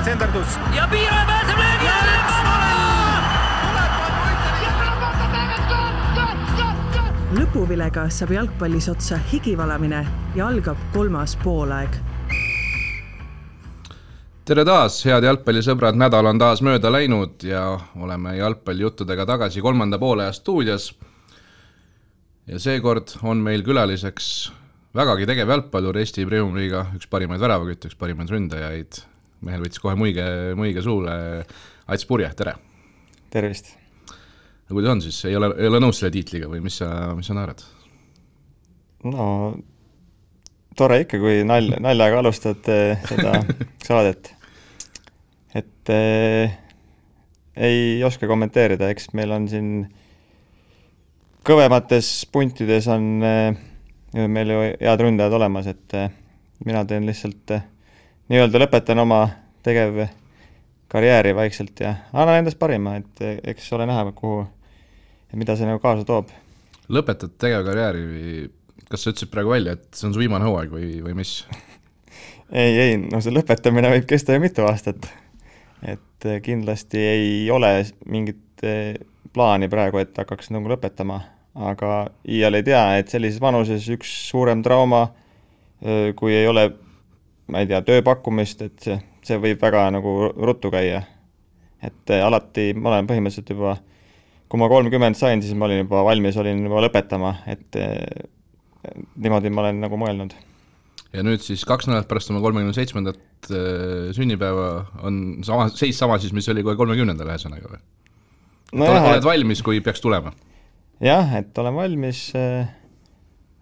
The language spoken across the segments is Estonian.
nüüd senderdus. Ja Piira pääseb löögi ja lõpuvilega saab jalgpallis otsa higivalamine ja algab 3. poolaeg. Tere taas, head jalgpallisõbrad, nädal on taas mööda läinud ja oleme jalgpallijuttudega tagasi 3. poolaja stuudios. Ja seekord on meil külaliseks vägagi tegev jalgpallur Eesti Premium-liiga, üks parimaid väravakütte, üks parimaid ründajaid. Mehel võttis kohe muige suule. Ats Purje, tere! Tervist! Kuidas on siis? Ei ole nõus selle tiitliga või mis sa naerad? No, tore ikka, kui naljaga alustad seda saadet. Et ei oska kommenteerida, eks meil on siin kõvemates puntides on meil ju head ründajad olemas, et mina teen lihtsalt nii-öelda lõpetan oma tegev karjääri vaikselt ja annan endast parima, et eks ole näha, kuhu ja mida see nagu kaasa toob. Lõpetad tegev karjääri, kas sa ütlesid praegu välja, et see on su viimane hooaeg või mis? Ei, no see lõpetamine võib kesta ju mitu aastat. Et kindlasti ei ole mingit plaani praegu, et hakkaks nagu lõpetama, aga iial ei tea, et sellises vanuses üks suurem trauma, kui ei ole, ma ei tea, tööpakkumist, et see võib väga nagu ruttu käia. Et alati ma olen põhimõtteliselt juba kui ma 30 sain, siis ma olin juba valmis, olin juba lõpetama, et niimoodi ma olen nagu mõelnud. Ja nüüd siis 2 nädalat pärast oma 37. sünnipäeva on seis sama siis, mis oli kohe 30. ühesõnaga või? No oled valmis, kui peaks tulema? Jah, et olen valmis,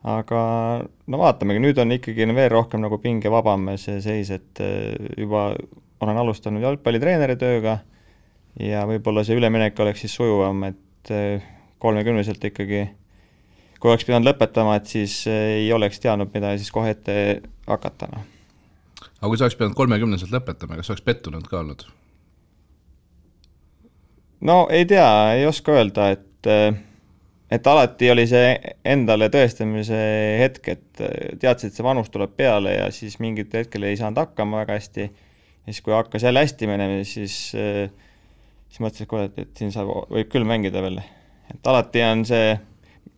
aga no vaatamegi, nüüd on ikkagi veel rohkem nagu pinge vabam see seis, et juba olen alustanud jalgpallitreeneri tööga ja võib-olla see üleminek oleks siis sujuvam, et 30-selt ikkagi, kui oleks pidanud lõpetama, et siis ei oleks teadnud, mida siis kohe ette hakata. No. Aga kui sa oleks pidanud 30-selt lõpetama, kas oleks pettunud ka olnud? No ei tea, ei oska öelda, et alati oli see endale tõestamise hetk, et teadsid, et see vanus tuleb peale ja siis mingit hetkel ei saanud hakkama väga hästi. Ja siis kui hakkas jälle hästi menema, siis mõtlesin, et siin võib küll mängida veel. Et alati on see,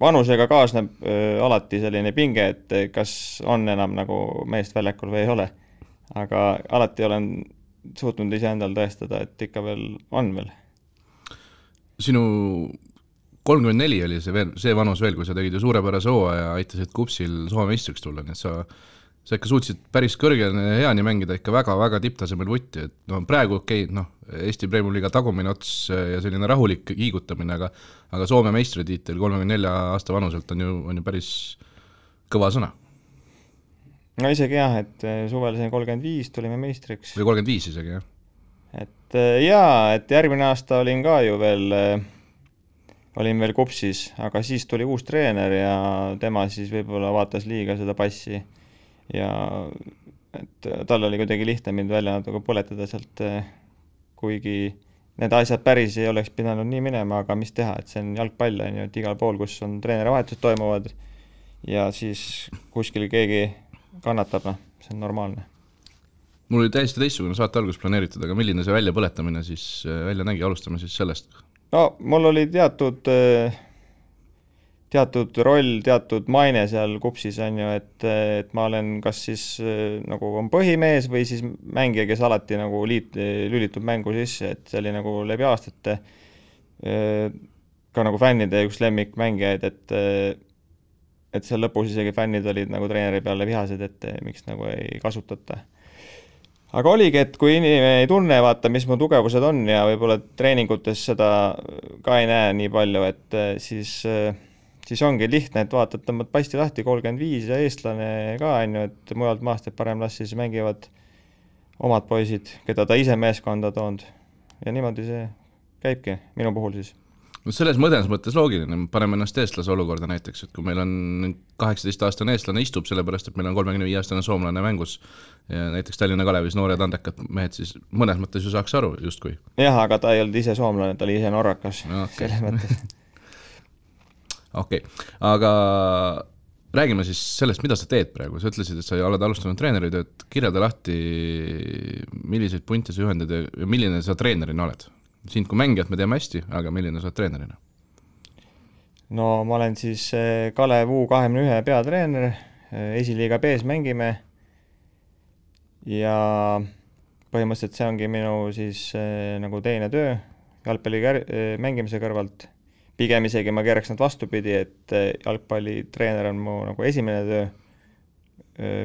vanusega kaasneb alati selline pinge, et kas on enam nagu meest väljakul või ei ole. Aga alati olen suutnud ise endal tõestada, et ikka veel on veel. Sinu 34 oli see vanus veel, kui sa tegid ju suurepärase hooaja ja aitasid Kupsil Soome meistriks tulla, nii et sa ikka suutsid päris heani mängida ikka väga-väga tipptasemel vutti, et no, praegu Eesti Premium-liiga tagumine ots ja selline rahulik kiigutamine, aga Soome meistritiitel 34 aasta vanuselt on ju päris kõva sõna. No isegi jah, et suvel 35 tulime meistriks. Või 35 isegi, jah. Et et järgmine aasta olin ka ju veel Kupsis, aga siis tuli uus treener ja tema siis võib-olla vaatas liiga seda passi ja et tal oli kuidagi lihtne mind välja natuke põletada sealt, kuigi need asjad päris ei oleks pidanud nii minema, aga mis teha, et see on jalgpall, et igal pool, kus on treenerivahetused toimuvad ja siis kuskil keegi kannatab, see on normaalne. Mul oli täiesti teistsugune saate algus planeeritud, aga milline see väljapõletamine siis välja nägi, alustame siis sellest? No, mul oli teatud roll, teatud maine seal Kupsis on ju, et ma olen kas siis nagu on põhimees või siis mängija, kes alati nagu lülitub mängu sisse, et see oli nagu läbi aastate ka nagu fännide üks lemmikmängijaid, et seal lõpus isegi fännid olid nagu treeneri peale vihased, et miks nagu ei kasutata. Aga oligi, et kui inimene ei tunne, vaata, mis mu tugevused on ja võib-olla treeningutes seda ka ei näe nii palju, et siis ongi lihtne, et vaatad, tõmbad pasti lahti 35 ja eestlane ka on ju, et mujalt maast et parem las siis mängivad omad poisid, keda ta ise meeskonda toonud. Ja niimoodi see käibki minu puhul siis. Selles mõttes loogiline, paneme ennast eestlase olukorda näiteks, et kui meil on 18-aastane eestlane istub, sellepärast, et meil on 35-aastane soomlane mängus ja näiteks Tallinna Kalevis noored andekad mehed, siis mõnes mõttes ju saaks aru justkui. Jah, aga ta ei olnud ise soomlane, ta oli ise norrakas. Selles mõttes. Okei, aga räägime siis sellest, mida sa teed praegu. Sa ütlesid, et sa oled alustanud treeneritööd, kirjelda lahti, milliseid punte sa juhendad ja milline sa treenerina oled? Sind kui mängijat me teeme hästi, aga milline sa oled treenerina? No ma olen siis Kalev U21 peatreener, esiliiga B-s mängime ja põhimõtteliselt see ongi minu siis nagu teine töö jalgpalli mängimise kõrvalt. Pigem isegi ma keeraks nad vastupidi, et jalgpallitreener on mu nagu esimene töö,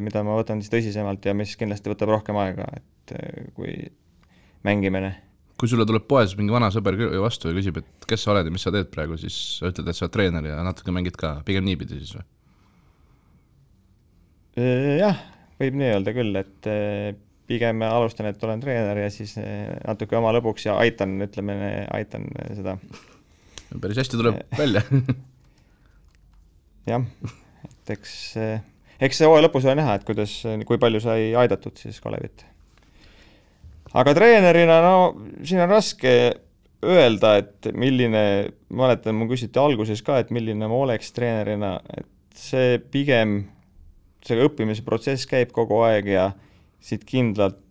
mida ma võtan siis tõsisemalt ja mis kindlasti võtab rohkem aega, et kui mängimine. Kui sulle tuleb poes mingi vana sõber vastu ja küsib, et kes sa oled ja mis sa teed praegu, siis sa ütled, et sa oled treener ja natuke mängid ka, pigem niipidi siis või? Jah, võib nii öelda küll, et pigem alustan, et olen treener ja siis natuke oma lõbuks ja aitan seda. Päris hästi tuleb välja. Jah, et eks see hooaja lõpus on näha, et kui palju sai aidatud siis Kalevit. Aga treenerina, no siin on raske öelda, et milline, ma mäletan, mu küsiti alguses ka, et milline ma oleks treenerina, et see pigem, see õppimise protsess käib kogu aeg ja siit kindlalt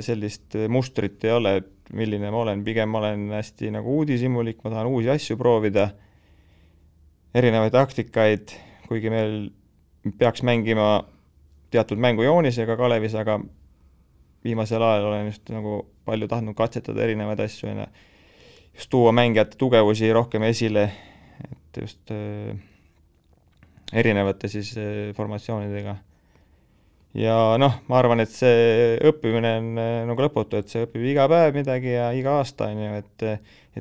sellist mustrit ei ole, et milline ma olen, pigem ma olen hästi nagu uudishimulik, ma tahan uusi asju proovida, erinevaid taktikaid, kuigi meil peaks mängima teatud mängujoonisega Kalevis, aga viimasel ajal olen just nagu palju tahtnud katsetada erinevaid asju ja just tuua mängijate tugevusi rohkem esile, et just erinevate siis formatsioonidega. Ja noh, ma arvan, et see õppimine on nagu lõputu, et see õpib iga päev midagi ja iga aasta on ju, et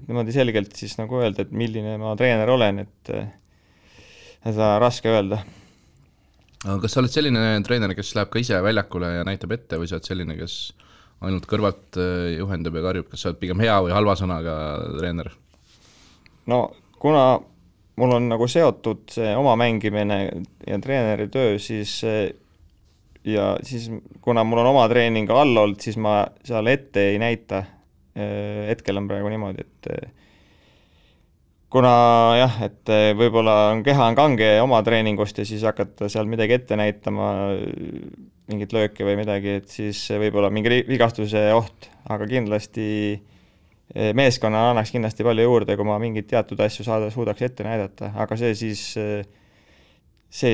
niimoodi selgelt siis nagu öelda, et milline ma treener olen, et seda raske öelda. Aga kas sa oled selline treener, kes läheb ka ise väljakule ja näitab ette või sa oled selline, kes ainult kõrvalt juhendab ja karjub, kas sa oled pigem hea või halva sõnaga treener? No kuna mul on nagu seotud see oma mängimine ja treeneri töö, siis kuna mul on oma treening all olnud, siis ma seal ette ei näita. Hetkel on praegu niimoodi, et kuna jah, et võib-olla keha on kange oma treeningust ja siis hakata seal midagi ette näitama, mingit lööki või midagi, et siis võib-olla mingi vigastuse oht, aga kindlasti meeskonna annaks kindlasti palju juurde, kui ma mingit teatud asju suudaks ette näidata, aga see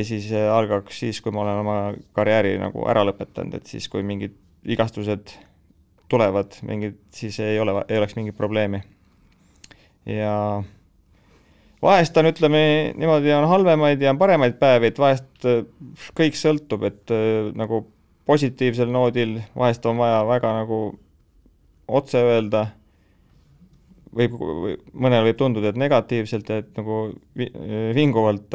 siis algaks siis, kui ma olen oma karjääri nagu ära lõpetanud, et siis kui mingid vigastused tulevad, siis ei oleks mingit probleemi. Ja vahest on, ütleme, niimoodi on halvemaid ja paremaid päevi, et vahest kõik sõltub, et nagu positiivsel noodil vahest on vaja väga nagu otse öelda, mõnel võib tunduda, et negatiivselt, et nagu vinguvalt,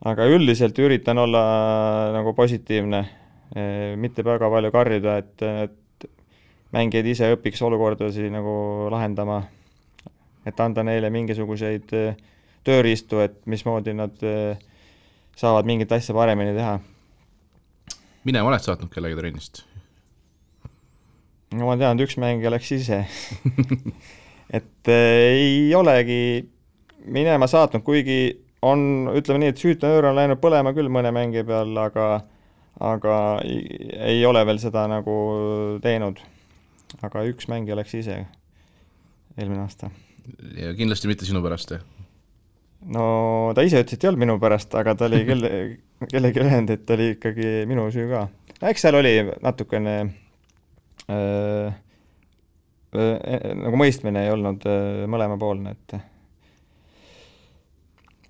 aga üldiselt üritan olla nagu positiivne, mitte väga palju karjuda, et mängijad ise õpiks olukordasi nagu lahendama, et anda neile mingisuguseid tööriistu, et mismoodi nad saavad mingit asja paremini teha. Minema oled saatnud kellegi trennist? No ma tean, et üks mängija läks ise. Et ei olegi minema saatnud, kuigi on, ütleme nii, et süütenöör on läinud põlema küll mõne mängija peal, aga ei ole veel seda nagu teinud. Aga üks mängija läks ise eelmine aasta. Ja kindlasti mitte sinu pärast, No ta ise ütles, et ei olnud minu pärast, aga ta oli kellegi öelnud, et oli ikkagi minu süü ka. Eks seal oli natukene nagu mõistmine ei olnud mõlemapoolne,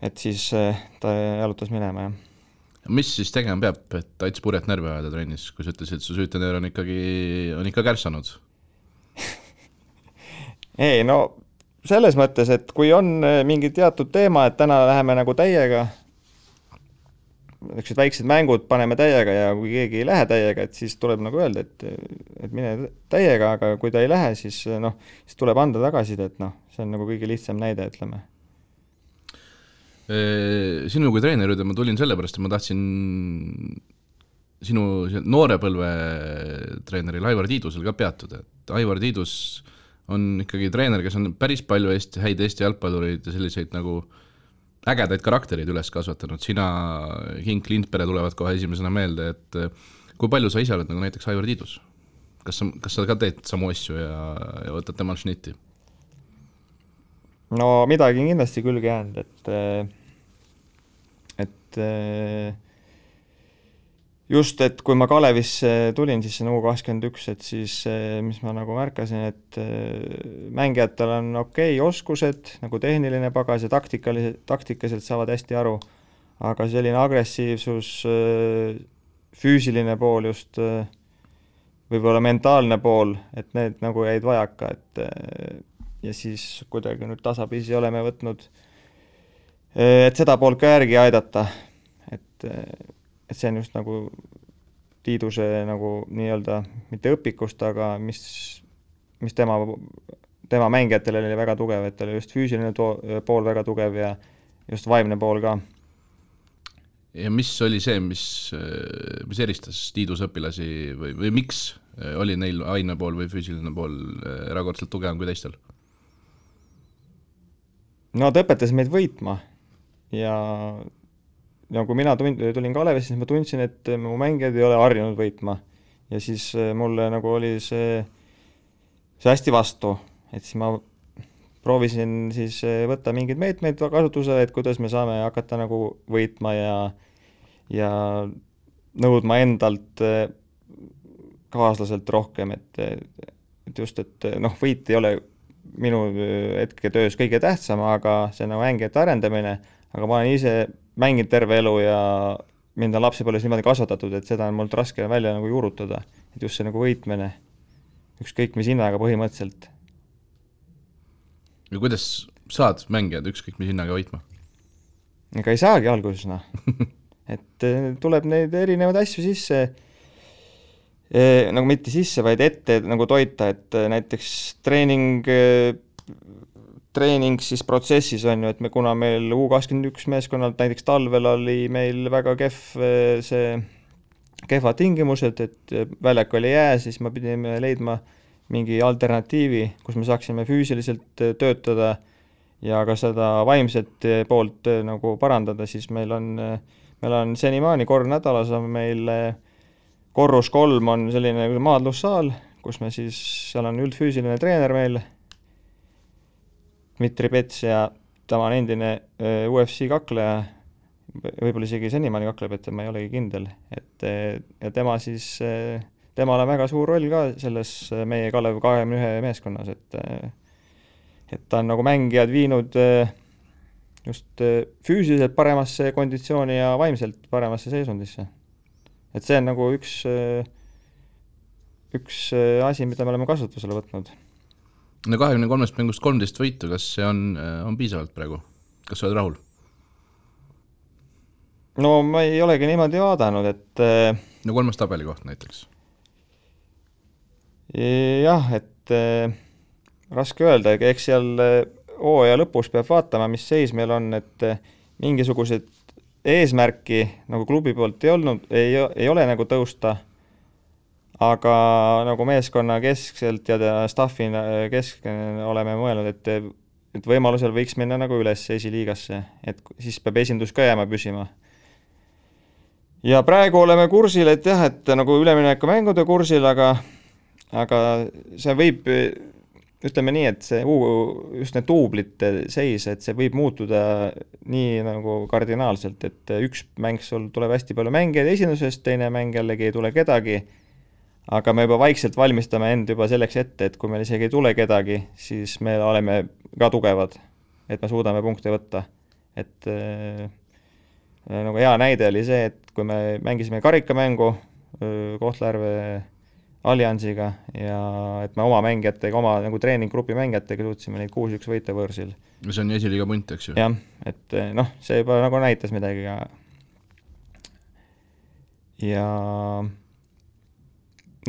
et siis ta jalutas minema, jah. Mis siis tegema peab, et aits purjet närve ajada trennis, kui sa ütlesid, et su süütenöör on ikka kärsanud? Ei, no selles mõttes, et kui on mingi teatud teema, et täna läheme nagu täiega, väiksed mängud paneme täiega ja kui keegi ei lähe täiega, et siis tuleb nagu öelda, et mine täiega, aga kui ta ei lähe, siis tuleb anda tagasida, et see on nagu kõige lihtsam näide, ütleme. Sinu kui treener, ma tulin sellepärast, et ma tahtsin sinu noorepõlve treeneril Aivar Tiidusel ka peatuda, et Aivar Tiidus on ikkagi treener, kes on päris palju häid Eesti jalgpallureid ja selliseid nagu ägedaid karakterid üles kasvatanud. Sina, Hink, Lindpere tulevad kohe esimesena meelde, et kui palju sa ise oled nagu näiteks Aivar Tiidus? kas sa ka teed samu asju ja võtad temal šnitti? No midagi on kindlasti külge jäänud, et just, et kui ma Kalevisse tulin, siis see U21, et siis mis ma nagu märkasin, et mängijatel on okei oskused, nagu tehniline pagas ja taktikaselt saavad hästi aru, aga selline agressiivsus, füüsiline pool just, võib-olla mentaalne pool, et need nagu jäid vajaka, ja siis kuidagi nüüd tasapisi oleme võtnud, et seda poolt ka järgi aidata, et see on just nagu Tiiduse nagu nii-öelda mitte õpikust, aga mis tema mängijatel oli väga tugev, et oli just füüsiline pool väga tugev ja just vaimne pool ka. Ja mis oli see, mis eristas Tiiduse õpilasi või miks oli neil vaimne pool või füüsiline pool erakordselt tugevam kui teistel? No ta õpetas meid võitma ja kui mina tulin Kalevisse, siis ma tundsin, et mu mängijad ei ole harjunud võitma ja siis mulle nagu oli see hästi vastu, et siis ma proovisin siis võtta mingeid meetmeid kasutusele, et kuidas me saame hakata nagu võitma ja nõudma endalt kaaslaselt rohkem, et just, et võit ei ole minu hetketöös kõige tähtsam, aga see on nagu mängijate arendamine, aga ma olen ise mänginud terve elu ja mind on lapsepõlves niimoodi kasvatatud, et seda on mult raske välja nagu juurutada, et just see nagu võitmine, ükskõik mis hinnaga põhimõtteliselt. Ja kuidas saad mängijad ükskõik mis hinnaga võitma? Ega ei saagi alguses, et tuleb neid erinevaid asju sisse, nagu mitte sisse, vaid ette nagu toita, et näiteks treening siis protsessis on ju, et kuna meil U21 meeskonnalt näiteks talvel oli meil väga kehvad tingimused, et väljak oli jää, siis me pidime leidma mingi alternatiivi, kus me saaksime füüsiliselt töötada ja ka seda vaimset poolt nagu parandada, siis meil on senimaani kord nädalas on meil korrus 3 on selline maadlussaal, kus me siis, seal on üldfüüsiline treener meil, Dmitri Pets ja ta on endine UFC kakleja, võib-olla isegi senimaani kakleb, et ma ei olegi kindel, ja tema siis, temal on väga suur roll ka selles meie Kalev 21 meeskonnas, et ta on nagu mängijad viinud just füüsiliselt paremasse konditsiooni ja vaimselt paremasse seisundisse. Et see on nagu üks asi, mida me oleme kasutusele võtnud. No 23 mängust 13 võitu, kas see on piisavalt praegu? Kas sa oled rahul? No ma ei olegi niimoodi vaadanud, et no 3. tabeli koht näiteks. Jah, et raske öelda, eks seal hooaja lõpus peab vaatama, mis seis meil on, et mingisugused eesmärki nagu klubi poolt ei ole nagu tõusta, aga nagu meeskonna keskselt ja staffina oleme mõelnud, et võimalusel võiks minna nagu üles esiliigasse, et siis peab esindus ka jääma püsima. Ja praegu oleme kursil, et jah, et nagu ülemineku mängude kursil, aga see võib, ütleme nii, et see just need duublite seis, et see võib muutuda nii nagu kardinaalselt, et üks mäng sul tuleb hästi palju mängijaid esindusest, teine mäng jällegi ei tule kedagi, aga me juba vaikselt valmistame end juba selleks ette, et kui meil isegi ei tule kedagi, siis me oleme ka tugevad, et me suudame punkte võtta. Et nagu hea näide oli see, et kui me mängisime karikamängu Kohtla-Järve Alliansiga ja et me oma mängijatega, oma nagu treeninggrupi mängijatega suutsime neid 6-1 võita võõrsil. See on esiliiga punt, eks ju? Jah, et see juba nagu näitas midagi. Ja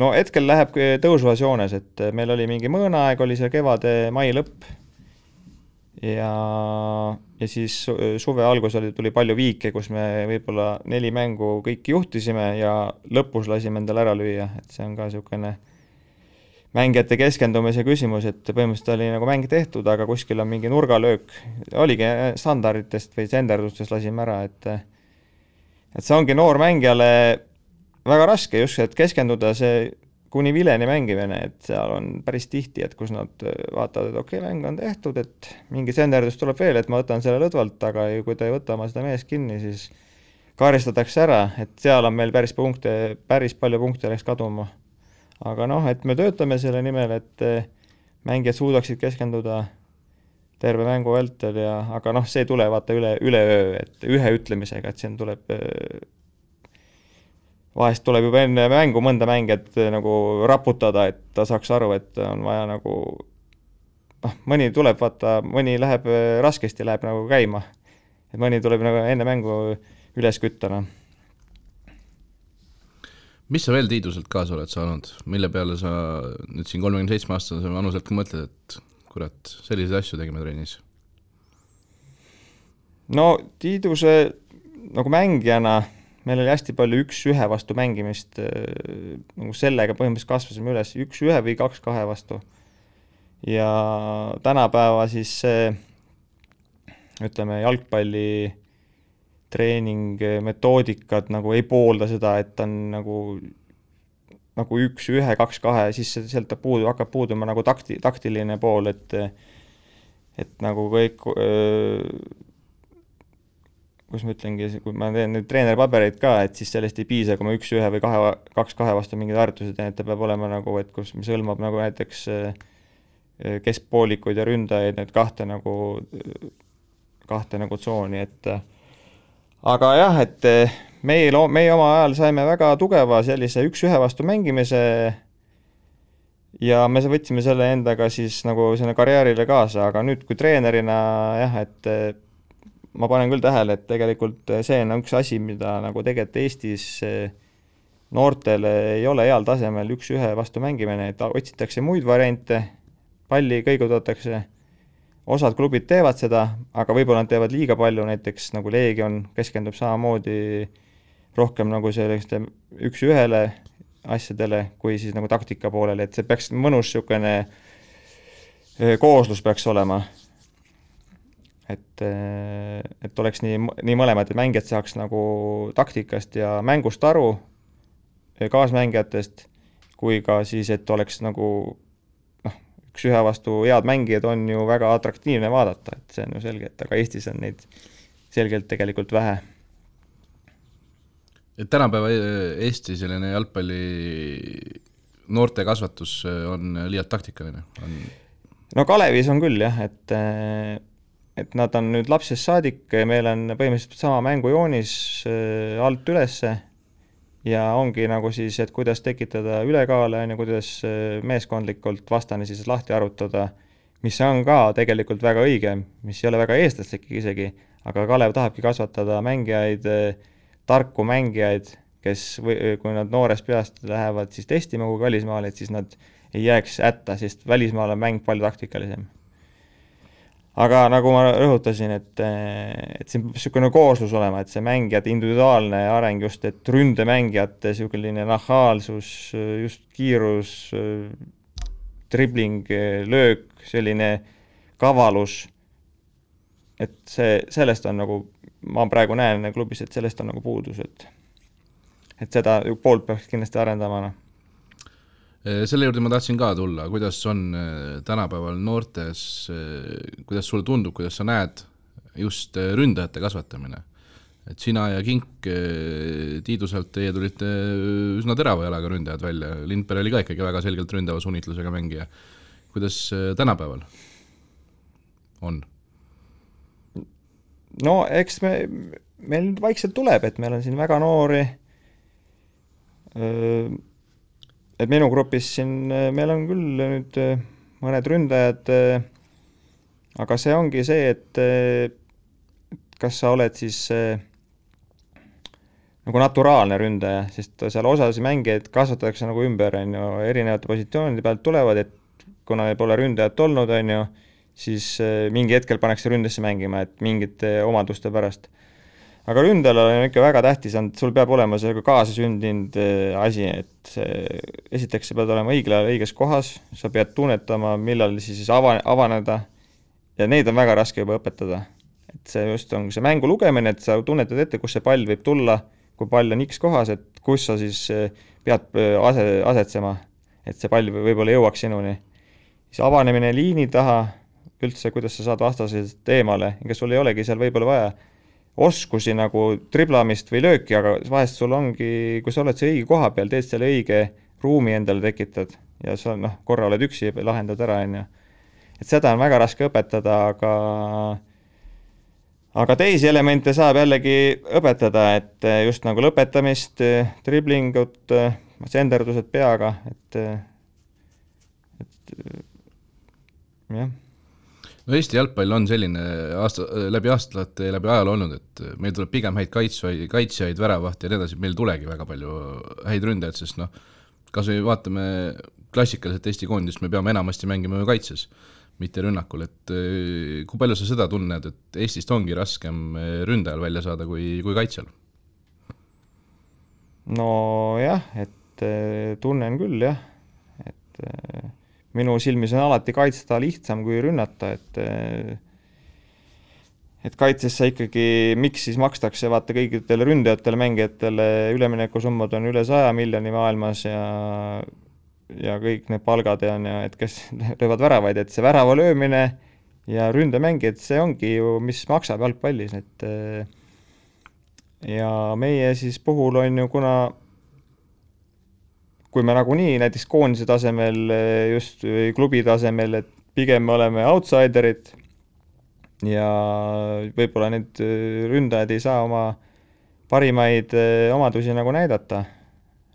no hetkel läheb tõusvas joones, et meil oli mingi mõõnaaeg, oli see kevade mai lõpp ja siis suve algus tuli palju viike, kus me võib-olla 4 mängu kõik juhtisime ja lõpus lasime endale ära lüüa, et see on ka niisugune mängijate keskendumise küsimus, et põhimõtteliselt oli nagu mäng tehtud, aga kuskil on mingi nurgalöök, oligi standarditest või senderdustest lasime ära, et see ongi noor mängijale väga raske just, et keskenduda, see kuni vileni mängimine, et seal on päris tihti, et kus nad vaatavad, et okei, mäng on tehtud, et mingi senderdus tuleb veel, et ma võtan selle lõdvalt, aga kui ta ei võta oma seda meest kinni, siis karistatakse ära, et seal on meil päris palju punkte läks kaduma. Aga et me töötame selle nimel, et mängijad suudaksid keskenduda terve mängu vältel aga see ei tule vaata üleöö, et ühe ütlemisega, et siin tuleb vahest tuleb juba enne mängu mõnda mängijat nagu raputada, et ta saaks aru, et on vaja nagu mõni tuleb, vaata, mõni läheb raskesti, läheb nagu käima. Et mõni tuleb nagu enne mängu üles küttana. Mis sa veel Tiiduselt kaasa oled saanud? Mille peale sa nüüd siin 37-aastase vanuselt mõtled, et kurat, selliseid asju tegime trennis? No Tiiduse nagu mängijana meil oli hästi palju 1-1 vastu mängimist, nagu sellega põhimõtteliselt kasvasime üles 1-1 või 2-2 vastu. Ja tänapäeva siis ütleme jalgpalli treening metoodikad nagu ei poolda seda, et on nagu 1-1, 2-2, siis sealt hakkab puuduma nagu taktiline pool, et nagu kõik kus ma ütlengi, kui ma teen nüüd treeneripabereid ka, et siis sellest ei piisa, kui ma 1-1 või 2-2 vastu mingid harjutused teen, et ta peab olema nagu, et kus mis hõlmab nagu näiteks keskpoolikuid ja ründajaid, need kahte nagu tsooni, et aga jah, et meie oma ajal saime väga tugeva sellise 1-1 vastu mängimise ja me võtsime selle endaga siis nagu sinna karjäärile kaasa, aga nüüd kui treenerina jah, et ma panen küll tähele, et tegelikult see on üks asi, mida nagu tegelikult Eestis noortele ei ole heal tasemel 1-1 vastu mängimine, et otsitakse muid variante, palli kõigutatakse, osad klubid teevad seda, aga võib-olla nad teevad liiga palju, näiteks nagu Leegion keskendub samamoodi rohkem nagu selliste 1-1 asjadele, kui siis nagu taktika poolele, et see peaks mõnus niisugune kooslus peaks olema. Et oleks nii mõlemad, et mängijad saaks nagu taktikast ja mängust aru kaasmängijatest, kui ka siis, et oleks nagu 1-1 vastu head mängijad on ju väga atraktiivne vaadata, et see on ju selge, et aga Eestis on neid selgelt tegelikult vähe. Et tänapäeva Eesti selline jalgpalli noorte kasvatus on liialt taktikaline? No Kalevis on küll jah, et nad on nüüd lapsest saadik, meil on põhimõtteliselt sama mängujoonis alt ülesse ja ongi nagu siis, et kuidas tekitada ülekaale ja kuidas meeskondlikult vastane siis lahti arutada, mis on ka tegelikult väga õige, mis ei ole väga eestlaslik isegi, aga Kalev tahabki kasvatada mängijaid, tarku mängijaid, kes kui nad noorest peast lähevad siis testima kui välismaale, et siis nad ei jääks hätta, sest välismaal on mäng palju taktikalisem. Aga nagu ma rõhutasin, et siin niisugune kooslus olema, et see mängijate individuaalne areng just, et ründemängijate niisugune nahaalsus, just kiirus, dribling, löök, selline kavalus, et sellest on nagu, ma praegu näen klubis, et sellest on nagu puudus, et seda poolt peaks kindlasti arendama. Selle juurde ma tahtsin ka tulla, kuidas on tänapäeval noortes, kuidas sulle tundub, kuidas sa näed just ründajate kasvatamine. Et sina ja Kink Tiiduselt teie tulite üsna terava jalaga ründajad välja. Lindberg oli ka ikkagi väga selgelt ründava sunnitlusega mängija. Kuidas tänapäeval on? No eks meil vaikselt tuleb, et meil on siin väga noori et minu grupis siin meil on küll nüüd mõned ründajad, aga see ongi see, et kas sa oled siis nagu naturaalne ründaja, sest seal osas mängijaid kasvatatakse nagu ümber, erinevate positsioonide pealt tulevad, et kuna ei pole ründajat olnud, siis mingi hetkel pannakse ründesse mängima, et mingite omaduste pärast. Aga ründajal on ikka väga tähtis, sul peab olema see kaasasündinud asi, et esiteks sa pead olema õiges kohas, sa pead tunnetama, millal siis avaneda ja neid on väga raske juba õpetada. Et see just on see mängu lugemine, et sa tunnetad ette, kus see pall võib tulla, kui pall on X kohas, et kus sa siis pead asetsema. et see pall võib-olla jõuaks sinuni. Siis avanemine liini taha, üldse kuidas sa saad vastasest eemale, ega sul ei olegi seal võib-olla vaja oskusi nagu triblamist või lööki, aga vahest sul ongi, kui sa oled see õige koha peal, teed selle õige ruumi endale tekitad ja sa korra oled üksi ja lahendad ära, et seda on väga raske õpetada, aga teisi elemente saab jällegi õpetada, et just nagu lõpetamist, driblingut, senderdused peaga, et jah. No Eesti jalgpall on selline läbi aastate ja läbi ajal olnud, et meil tuleb pigem häid kaitsjaid, väravahti ja nii edasi, meil tulegi väga palju häid ründajad, sest kas me vaatame klassikaliselt Eesti koondist, me peame enamasti mängima ju kaitses, mitte rünnakul, et kui palju sa seda tunned, et Eestist ongi raskem ründajal välja saada kui kaitsjal? No jah, et tunnen küll jah, et minu silmis on alati kaitsta lihtsam kui rünnata, et kaitses sa ikkagi, miks siis makstakse vaata kõigitele ründajatele, mängijatele üleminekusummad on üle 100 miljoni maailmas ja kõik need palgad ja et kes löövad väravaid, et see värava löömine ja ründemängijad, see ongi ju, mis maksab jalgpallis, et ja meie siis puhul on ju, kuna kui me nagunii näiteks koondise tasemel, just klubi tasemel, et pigem me oleme outsiderid ja võib-olla need ründajad ei saa oma parimaid omadusi nagu näidata,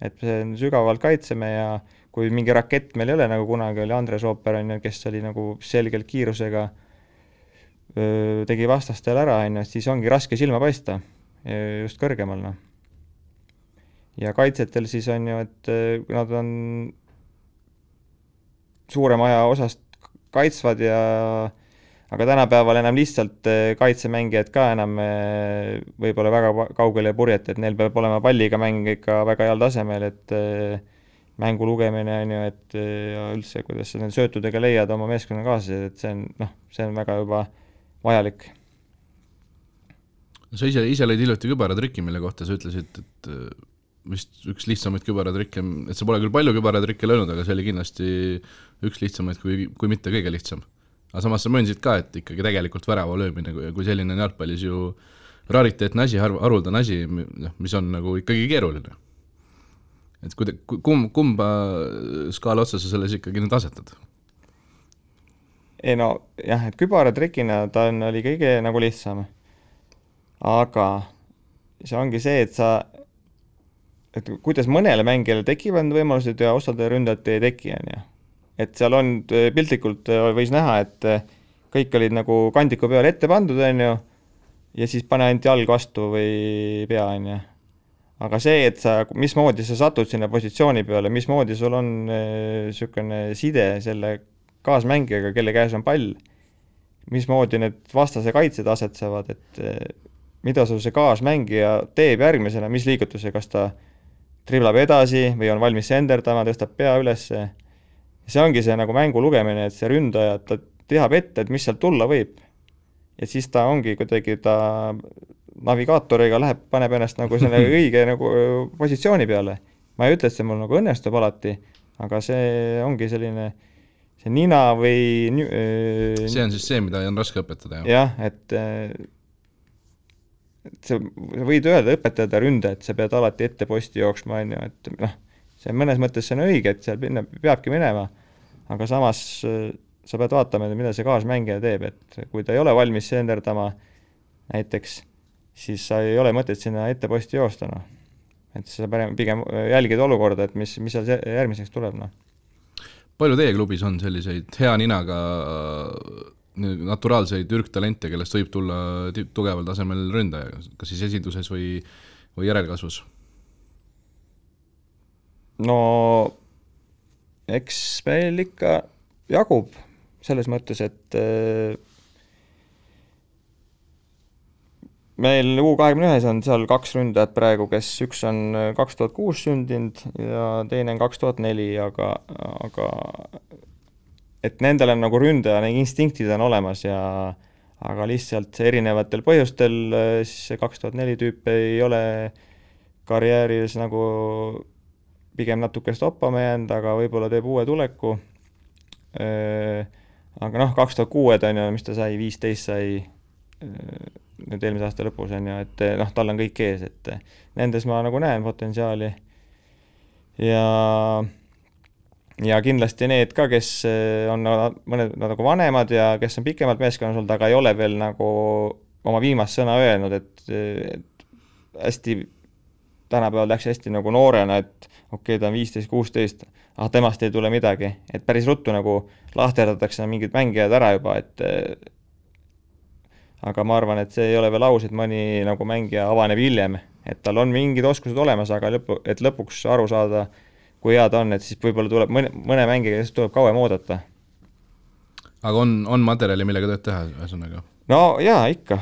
et see sügavalt kaitseme ja kui mingi rakett meil ei ole, nagu kunagi oli Andres Ooper, kes oli nagu selgelt kiirusega, tegi vastastel ära, siis ongi raske silma paista just kõrgemal. Ja kaitsetel siis on ju, et nad on suurema aja osast kaitsvad aga tänapäeval enam lihtsalt kaitsemängijad ka enam võib-olla väga kaugele purjeta, et neil peab olema palliga mäng ikka väga heal tasemel, et mängu lugemine on ju, et ja üldse, kuidas sa need söötudega leiad oma meeskonna kaaslased, et see on väga juba vajalik. Sa ise lõid hiljuti kübaratrikki, mille kohta sa ütlesid, et vist üks lihtsamaid kübaratrikke, et sa pole küll palju kübaratrikke löönud, aga see oli kindlasti üks lihtsamaid, kui mitte kõige lihtsam. Aga samas sa möönsid ka, et ikkagi tegelikult värava löömine, kui selline jalgpallis ju rariteetne asi, haruldane asi, mis on nagu ikkagi keeruline. Et kumba skaala otsa sa selles ikkagi nüüd asetad? Ei no jah, et kübaratrikina ta oli kõige nagu lihtsam. Aga see ongi see, et kuidas mõnele mängijale tekivad võimalused ja osade ründajate ei teki. Et seal on piltlikult võis näha, et kõik olid nagu kandiku peal ette pandud ja siis pane ainult jalg vastu või pea. Aga see, et mismoodi sa satud sinna positsiooni peale, mismoodi sul on sükene side selle kaasmängijaga, kelle käes on pall, mismoodi need vastase kaitsed asetsevad, et mida sul see kaasmängija teeb järgmisena, mis liigutuse, kas ta triblab edasi või on valmis senderdama, tõstab pea üles. See ongi see nagu mängu lugemine, et see ründaja, ta teab ette, et mis sealt tulla võib. Ja siis ta ongi kuidagi navigaatoriga paneb ennast nagu selle õige nagu positsiooni peale. Ma ei ütle, et see mul nagu õnnestub alati, aga see ongi selline see nina või see on siis see, mida on raske õpetada. Jah, et sa võid öelda õpetada ründa, et sa pead alati ette posti jooksma, et see mõnes mõttes see on õige, et seal peabki minema, aga samas sa pead vaatama, mida see kaasmängija teeb, et kui ta ei ole valmis senderdama näiteks, siis sa ei ole mõtet sinna ette posti joosta. Et sa pigem jälgid olukorda, et mis seal järgmiseks tuleb. Palju teie klubis on selliseid hea ninaga naturaalseid ürgtalente, kellest võib tulla tugeval tasemel ründaja, kas siis esinduses või järelkasvus? No eks meil ikka jagub selles mõttes, et meil U21 on seal 2 ründajat praegu, kes üks on 2006 sündinud ja teine on 2004, aga et nendel on nagu ründaja, need instinktid on olemas aga lihtsalt erinevatel põhjustel siis see 2004 tüüp ei ole karjääris nagu pigem natuke stoppama jäänud, aga võib-olla teeb uue tuleku. Aga 2006 on ju, mis ta sai, 15 sai nüüd eelmise aasta lõpus on ju, et tal on kõik ees, et nendes ma nagu näen potentsiaali. Ja kindlasti need ka, kes on mõned nagu vanemad ja kes on pikemalt meeskonnas olnud, aga ei ole veel nagu oma viimast sõna öelnud, et hästi tänapäeval läks hästi nagu noorena, et okei, ta on 15-16, temast ei tule midagi, et päris ruttu nagu lahterdatakse mingid mängijad ära juba, et aga ma arvan, et see ei ole veel aus, et mõni nagu mängija avaneb hiljem, et tal on mingid oskused olemas, aga lõpuks aru saada, kui hea ta on, et siis võib-olla tuleb mõne mängija, kes tuleb kauem oodata. Aga on materjali, millega tööd teha, ühesõnaga? No jaa, ikka.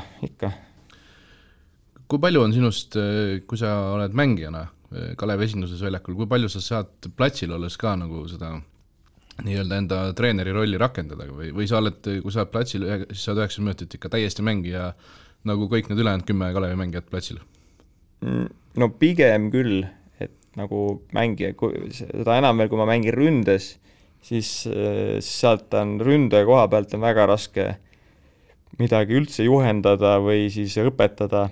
Kui palju on sinust, kui sa oled mängijana Kalevi esinduses väljakul, kui palju sa saad platsil olles ka nagu seda nii-öelda enda treeneri rolli rakendada või sa oled, kui sa oled platsil, siis saad 90 minutit ikka täiesti mängija nagu kõik need ülejäänud 10 Kalevi mängijat platsil? No pigem küll, et nagu mängija, seda enam veel, kui ma mängin ründes, siis sealt on ründaja koha pealt on väga raske midagi üldse juhendada või siis õpetada.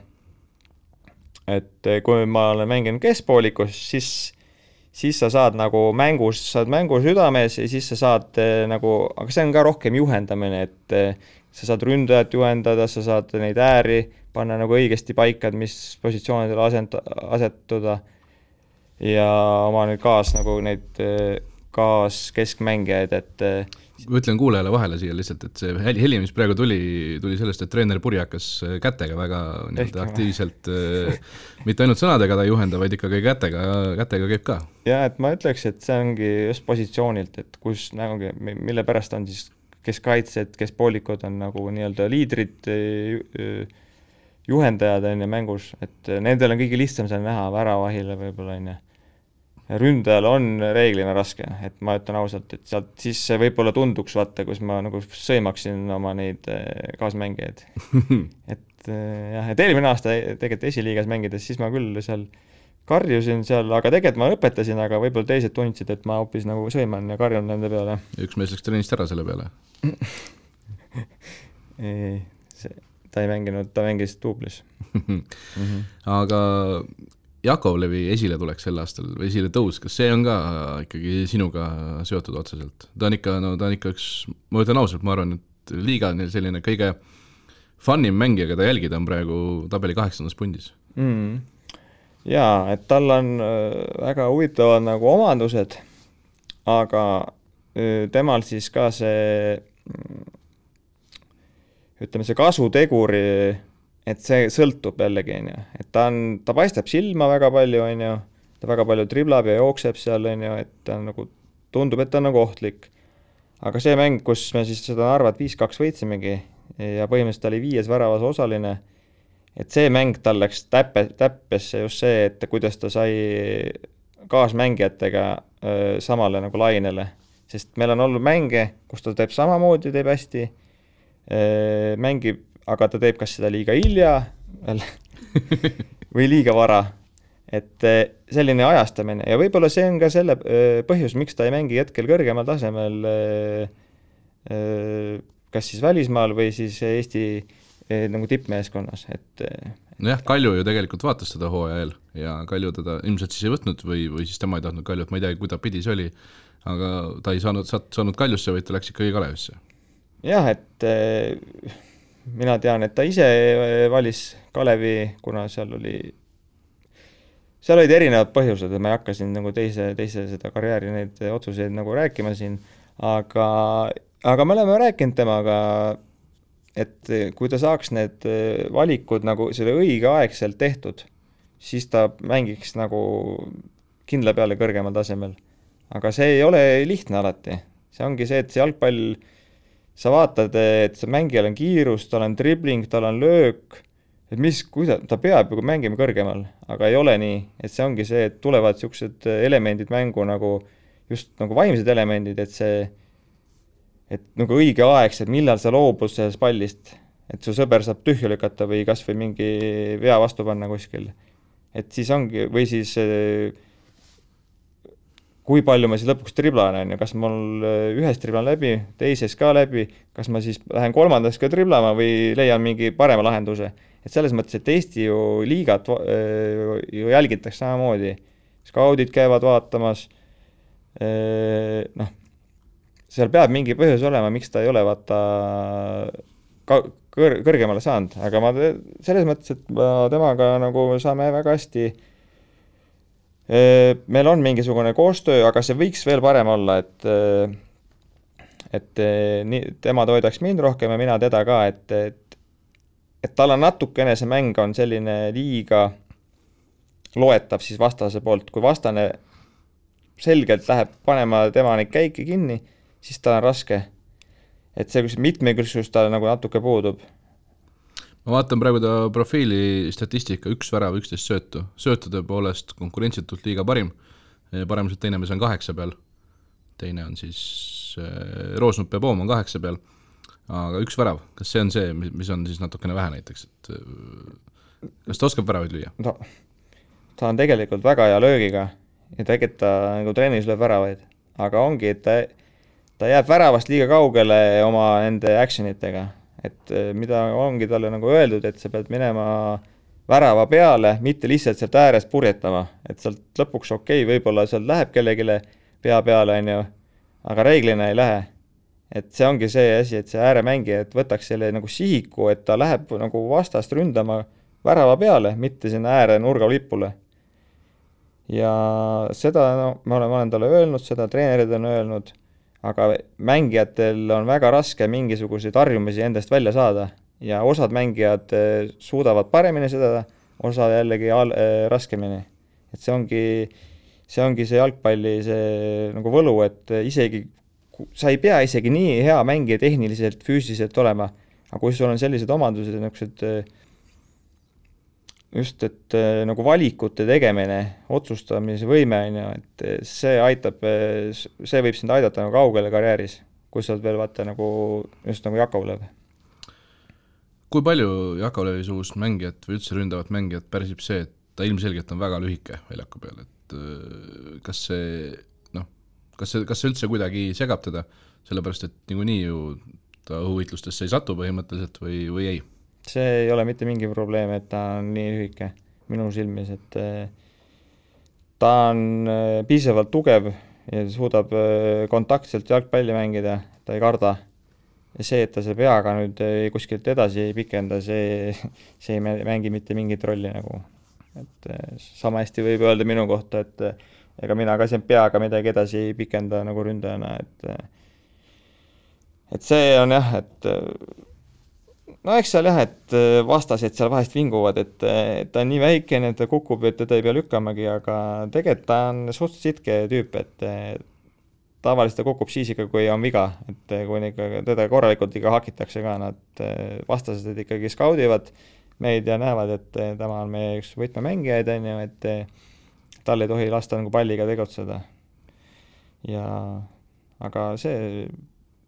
Et kui ma olen mänginud keskpoolikus, siis sa saad nagu mängu südames ja siis sa saad nagu, aga see on ka rohkem juhendamine, et sa saad ründajat juhendada, sa saad neid ääri panna nagu õigesti paika, mis positsioonidele asetuda ja oma nüüd keskmängijaid, et ütlen kuulajale vahele siia lihtsalt, et see heli, mis praegu tuli sellest, et treener Puri hakkas kätega väga aktiivselt, mitte ainult sõnadega ta ei juhenda, vaid ikkagi kätega käib ka. Ja, et ma ütleks, et see ongi just positsioonilt, et kus nagu, mille pärast on siis keskkaitsed, keskpoolikud on nagu nii-öelda liidrid, juhendajad on ja mängus, et nendel on kõige lihtsam seal näha väravahile võib-olla on ja ründajal on reeglina raske, et ma ütlen ausalt, et sealt siis võib-olla tunduks vaata, kus ma nagu sõimaksin oma neid kaasmängijaid. et eelmine aasta tegelikult esiliigas mängides, siis ma küll seal karjusin seal, aga tegelikult ma õpetasin, aga võib-olla teised tundsid, et ma hoopis nagu sõiman ja karjun nende peale. Üks mees läks treenist ära selle peale? Ei, ta ei mänginud, ta mängis duublis. Aga Jakovlevi esile tuleks sel aastal või esile tõus, kas see on ka ikkagi sinuga seotud otseselt? Ta on ikka üks, ma ütlen ausalt, ma arvan, et liiga on selline kõige funnim mängija, keda jälgida on praegu tabeli 8. pundis. Jaa, et tal on väga huvitavad nagu omandused, aga temal siis ka see, ütleme see kasuteguri, et see sõltub jällegi, et ta paistab silma väga palju, ta väga palju driblab ja jookseb seal, et ta nagu, tundub, et ta on nagu ohtlik. Aga see mäng, kus me siis seda Narvat 5-2 võitsimegi ja põhimõtteliselt ta oli 5 väravas osaline, et see mäng tal läks täppesse just see, et kuidas ta sai kaasmängijatega samale nagu lainele. Sest meil on olnud mänge, kus ta teeb samamoodi, teeb hästi, mängib, aga ta teeb kas seda liiga hilja või liiga vara. Et selline ajastamine ja võib-olla see on ka selle põhjus, miks ta ei mängi hetkel kõrgemal tasemel kas siis välismaal või siis Eesti nagu tippmeeskonnas. Nojah, Kalju ju tegelikult vaatas seda hooaja eel ja Kalju teda ilmselt siis ei võtnud või siis tema ei tahtnud Kaljut, ma ei tea, kui ta pidi see oli, aga ta ei saanud Kaljusse, vaid ta läks ikkagi Kalevisse. Jah, et mina tean, et ta ise valis Kalevi, kuna seal olid erinevad põhjused, et ma ei hakka siin nagu teise seda karjääri neid otsuseid nagu rääkima siin, aga me oleme rääkinud temaga, et kui ta saaks need valikud nagu selle õigeaegselt tehtud, siis ta mängiks nagu kindla peale kõrgemal tasemel. Aga see ei ole lihtne alati. See ongi see, et see jalgpall, sa vaatad, et see mängijal on kiirus, tal on dribling, tal on löök, et ta peab ju mängima kõrgemal, aga ei ole nii, et see ongi see, et tulevad siuksed elemendid mängu nagu just nagu vaimsed elemendid, et nagu õigeaegselt, millal sa loobud sellest pallist, et su sõber saab tühja lükata või kas või mingi vea vastu panna kuskil. Et siis ongi, või siis kui palju ma siis lõpuks triblan, on ju, kas mul ühes triblan läbi, teises ka läbi, kas ma siis lähen kolmandas ka triblama või leian mingi parema lahenduse. Et selles mõttes, et Eesti ju liigat ju jälgitakse samamoodi. Skaudid käivad vaatamas, seal peab mingi põhjus olema, miks ta ei ole vaata kõrgemale saanud, aga ma selles mõttes, et ma temaga nagu saame väga hästi, meil on mingisugune koostöö, aga see võiks veel parem olla, et tema toidaks mind rohkem ja mina teda ka, et tal on natukene see mäng on selline liiga loetav siis vastase poolt, kui vastane selgelt läheb panema tema neid käike kinni, siis ta on raske. Et see mitmekülgsus tal nagu natuke puudub. Ma vaatan praegu ta profiili statistika 1 värav, 11 söötu. Söötude poolest konkurentsitult liiga parim. Paremuselt teine mees on 8 peal. Teine on siis Roosnup ja Poom on 8 peal. Aga 1 värav. Kas see on see, mis on siis natukene vähe näiteks? Et kas ta oskab väravaid lüüa? No, ta on tegelikult väga hea löögiga ja tegelikult ta nagu trennis lööb väravaid. Aga ongi, et ta jääb väravast liiga kaugele oma nende actionitega. Et mida ongi talle nagu öeldud, et sa pead minema värava peale, mitte lihtsalt sealt äärest purjetama. Et sealt lõpuks okei, võib-olla sealt läheb kellegile pea peale, on ju, aga reeglina ei lähe. Et see ongi see asi, et see ääremängija, et võtaks selle nagu sihiku, et ta läheb nagu vastast ründama värava peale, mitte sinna ääre nurga lipule. Ja seda ma olen talle öelnud, seda treenerid on öelnud, aga mängijatel on väga raske mingisuguseid harjumisi endast välja saada ja osad mängijad suudavad paremini seda, osa jällegi raskemini. Et see ongi see jalgpalli see nagu võlu, et isegi sa ei pea isegi nii hea mängija tehniliselt, füüsiliselt olema, aga kui sul on sellised omandused, just, et nagu valikute tegemine, otsustamise võime, et see aitab, see võib sind aidata nagu kaugele karjääris, kui sa oled veel vaata nagu, just nagu Jakovlev. Kui palju Jakovlevi suust mängijat või üldse ründavat mängijat pärsib see, et ta ilmselgelt on väga lühike väljaku peal, et kas see üldse kuidagi segab teda, sellepärast et niikuinii ju ta õhuvitlustesse ei satu põhimõtteliselt või ei? See ei ole mitte mingi probleem, et ta on nii lühike minu silmis, et ta on piisavalt tugev ja suudab kontaktselt jalgpalli mängida, ta ei karda. Ja see, et ta see peaga nüüd kuskilt edasi ei pikenda, see ei mängi mitte mingit rolli nagu. Et sama hästi võib öelda minu kohta, et ega mina ka siin peaga midagi edasi ei pikenda nagu ründajana, et see on jah, et no eks seal jah, et vastased seal vahest vinguvad, et ta on nii väikene, et ta kukub, et teda ei pea lükkamagi, aga tegelikult ta on suht sitke tüüp, et tavaliselt ta kukub siis ikka, kui on viga, et kui teda korralikult ikka hakitakse ka, nad vastased ikkagi skaudivad meid ja näevad, et tema on meie üks võtmemängijaid, et tal ei tohi lasta nagu palliga tegutseda. Aga see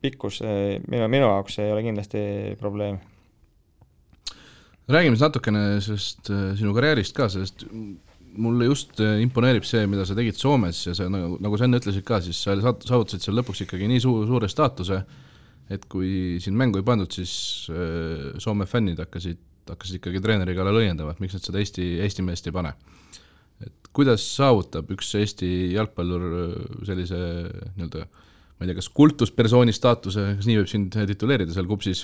pikkus minu jaoks ei ole kindlasti probleem. Räägime natukene sellest sinu karjäärist ka, sest mulle just imponeerib see, mida sa tegid Soomes ja sa, nagu sa enne ütlesid ka, siis sa saavutasid seal lõpuks ikkagi nii suure staatuse, et kui siin mängu ei pandud, siis Soome fännid hakkasid ikkagi treeneri kallal õiendama, et miks nad seda Eesti meest ei pane. Et kuidas saavutab üks Eesti jalgpallur sellise nii-öelda, ma ei tea, kas kultuspersooni staatuse, kas nii võib sind tituleerida seal Kupsis,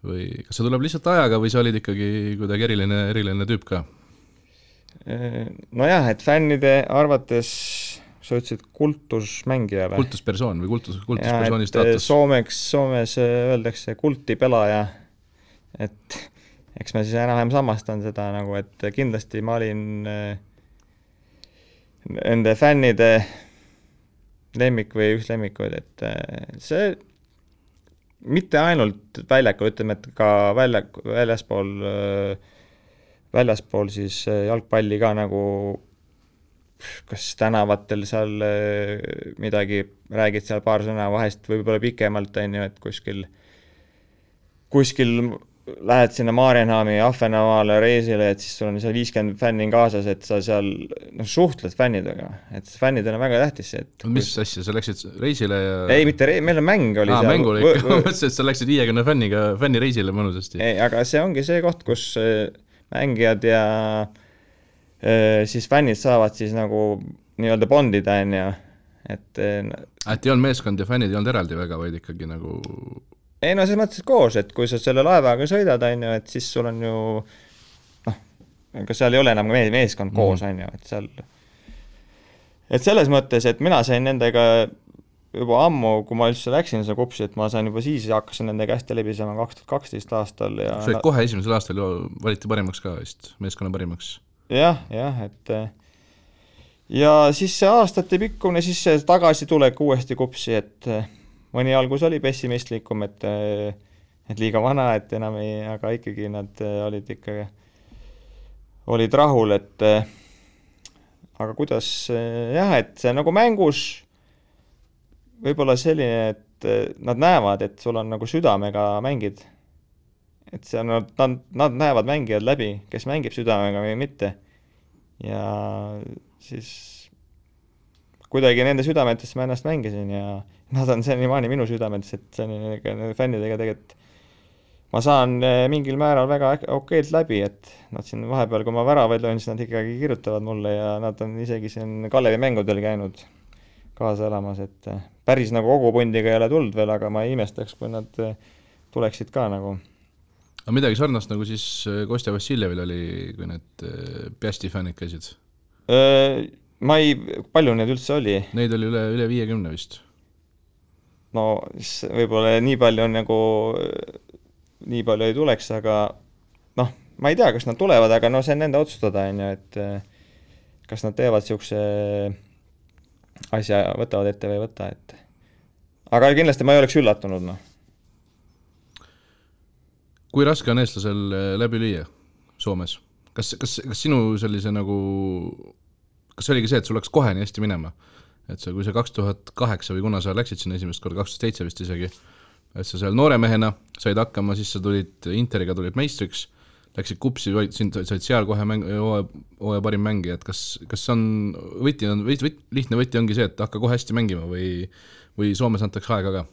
või kas see tuleb lihtsalt ajaga või sa olid ikkagi kuidagi eriline tüüp ka? Nojah, et fännide arvates sa ütlesid kultusmängija või? Kultuspersoon või kultuspersooni staatus? Soomes öeldakse kultipelaja, et eks ma siis enam samastan seda nagu, et kindlasti ma olin nende fännide lemmik või üks lemmikuid, et see mitte ainult väljakul, ütleme, et ka väljaspool siis jalgpalli ka nagu kas tänavatel seal midagi räägid seal paar sõna vahest võib-olla pikemalt, et kuskil lähed sinna Maarjenhaami Ahvenamaale reisile, et siis sul on seal 50 fänni kaasas, et sa seal suhtled fännidega, et fännidel on väga tähtis see, et mis asja, sa läksid reisile ja ei, mitte meil on mäng oli seal mängul ikka, ma mõtlesin, et sa läksid 50 fänni reisile mõnusasti. Ei, aga see ongi see koht, kus mängijad ja siis fännid saavad siis nagu nii-öelda bondida, et ei olnud meeskond ja fännid ei olnud eraldi väga, vaid ikkagi nagu ei no selles mõttes koos, et kui sa selle laevaga sõidad, et siis sul on ju kas seal ei ole enam meeskond koos, et seal et selles mõttes, et mina sain nendega juba ammu, kui ma üldse läksin seda kupsi, et ma sain juba siis ja hakkasin nendega hästi läbisema 2012 aastal ja sa olid kohe esimesel aastal valiti parimaks ka vist, meeskonna parimaks. Jah, et ja siis see aastate pikkune, siis see tagasi tulek uuesti kupsi, et mõni algus oli pessimistlikum, et liiga vana, et enam ei, aga ikkagi nad olid rahul, et aga kuidas et see nagu mängus võib-olla selline, et nad näevad, et sul on nagu südamega mängid. Et see on, nad näevad mängijad läbi, kes mängib südamega või mitte. Ja siis kuidagi nende südametesse ma ennast mängisin ja nad on senimaani minu südametes, et see fännidega tegelikult ma saan mingil määral väga okeilt läbi, et nad siin vahepeal, kui ma väravaid löön, siis nad ikkagi kirjutavad mulle ja nad on isegi siin Kalevi mängudel käinud kaasa elamas, et päris nagu kogu pundiga ei ole tulnud veel, aga ma ei imestaks, kui nad tuleksid ka nagu. Aga midagi sarnast nagu siis Kostja Vassiljevil oli, kui need Piasti fännid käisid? Palju neid üldse oli? Neid oli üle 50 vist. No võib-olla nii palju on nagu, nii palju ei tuleks, aga ma ei tea, kas nad tulevad, aga see on nende otsustada, et kas nad teevad siukse asja, võtavad ette või ei võta, et aga kindlasti ma ei oleks üllatunud, Kui raske on eestlasel läbi lüüa Soomes? Kas sinu sellise nagu, kas oligi see, et sul läks kohe nii hästi minema? Et kui see 2008 või kuna sa läksid sinna esimest korda, 2007 vist isegi, et sa seal noore mehena said hakkama, siis sa tulid Interiga, tulid meistriks, läksid kupsi, said seal kohe hooaja parim mängija, et kas on lihtne võti ongi see, et hakka kohe hästi mängima või Soomes antakse aega ka?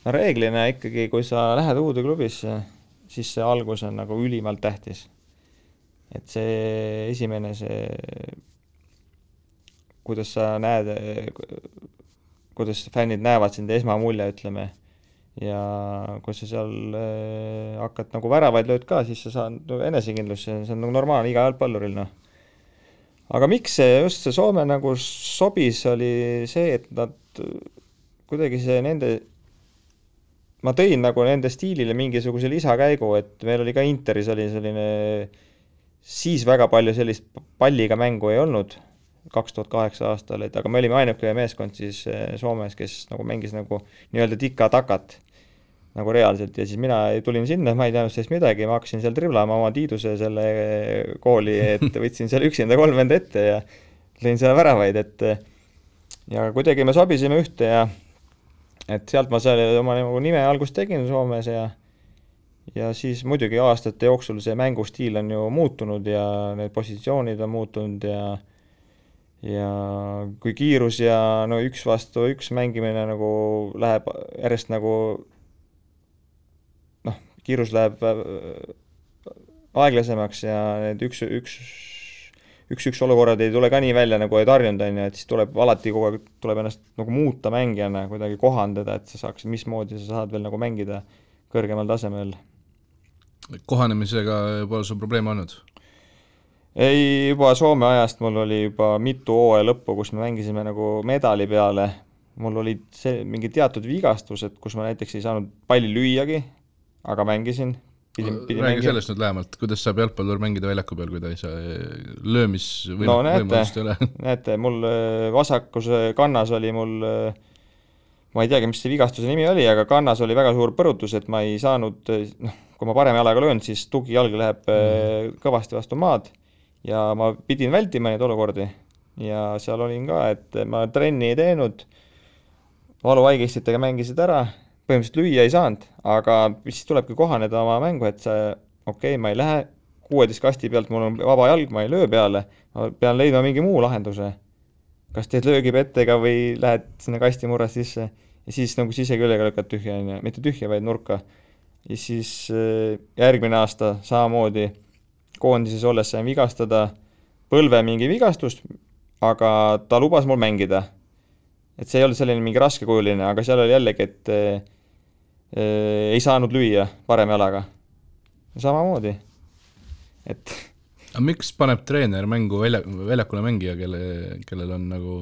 Reeglina ikkagi, kui sa lähed uude klubisse, siis see algus on nagu ülimalt tähtis. Et see esimene, kuidas sa näed, kuidas fännid näevad sind esmamulje, ütleme, ja kui sa seal hakkad nagu väravaid lööd ka, siis sa saad enesekindlus, see on nagu normaalne iga jalgpalluril. Aga miks just see Soome nagu sobis, oli see, et nad kuidagi see nende ma tõin nagu nende stiilile mingisuguse lisakäigu, et meil oli ka Interis oli selline, siis väga palju sellist palliga mängu ei olnud 2008 aastal, aga me olime ainuke meeskond siis Soomes, kes nagu mängis nagu nii-öelda tika-takat nagu reaalselt ja siis mina tulin sinna, ma ei teadnud sellest midagi, ma hakkasin seal driblama oma Tiiduse selle kooli, et võtsin seal üksinda 3 venda ette ja lõin seal väravaid, et ja kuidagi me sobisime ühte ja et sealt ma seal oma nime algust tegin Soomes ja siis muidugi aastate jooksul see mängustiil on ju muutunud ja need positsioonid on muutunud ja kui kiirus ja üks vastu üks mängimine nagu läheb järjest nagu kiirus läheb aeglasemaks ja need üks olukorrad ei tule ka nii välja nagu ei tarjunud, et siis tuleb alati kogu aeg tuleb ennast nagu muuta mängijana, kuidagi kohandada, et sa saaks, mismoodi sa saad veel nagu mängida kõrgemal tasemel. Kohanemisega pole sul probleeme olnud? Ei, juba Soome ajast mul oli juba mitu hooaja lõppu, kus me mängisime nagu medali peale. Mul olid mingi teatud vigastused, kus ma näiteks ei saanud palli lüüagi, aga mängisin. Räägi sellest nüüd lähemalt, kuidas saab jalgpallur mängida väljaku peal, kui ta ei saa võimalust ei ole? Näete, mul vasakus kannas oli mul, ma ei teagi, mis see vigastuse nimi oli, aga kannas oli väga suur põrutus, et ma ei saanud, kui ma parem jalaga löön, siis tugijalg läheb kõvasti vastu maad ja ma pidin vältima neid olukordi ja seal olin ka, et ma trenni ei teinud, valuvaigistitega mängisid ära, põhimõtteliselt lüüa ei saanud, aga siis tulebki kohaneda oma mängu, et ma ei lähe 16 kasti pealt, mul on vaba jalg, ma ei löö peale, ma pean leidma mingi muu lahenduse. Kas teed löögipettega või lähed sinna kasti murras sisse ja siis nagu siseküljega lükkad tühja, mitte tühja, vaid nurka. Ja siis järgmine aasta samamoodi koondises olles sain vigastada põlve mingi vigastust, aga ta lubas mul mängida. Et see ei olnud selline mingi raskekujuline, aga seal oli jällegi, et ei saanud lüüa parem jalaga. Samamoodi. Et aga miks paneb treener mängu väljakule mängija, kellel on nagu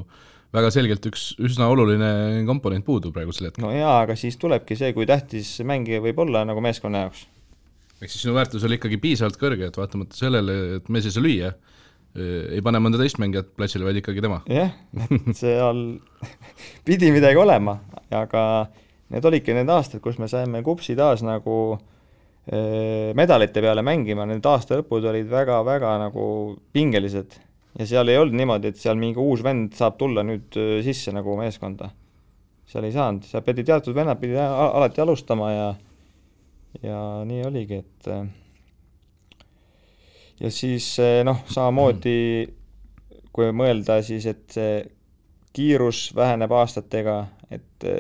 väga selgelt üks üsna oluline komponent puudu praegusel hetkel? No jaa, aga siis tulebki see, kui tähtis mängija võib olla nagu meeskonna jaoks. Ehk siis sinu väärtus oli ikkagi piisavalt kõrge, et vaatamata sellele, et mees ei saa lüüa, ei pane mõnda teist mängijat platsile, vaid ikkagi tema. Jah, seal pidi midagi olema, aga need olidki need aastad, kus me saime kupsi taas nagu medalite peale mängima, need aasta lõpud olid väga-väga nagu pingelised ja seal ei olnud niimoodi, et seal mingi uus vend saab tulla nüüd sisse nagu meeskonda. Seal ei saanud, seal pidi teatud vennad pidi alati alustama ja nii oligi, et ja siis samamoodi kui mõelda siis, et see kiirus väheneb aastatega, et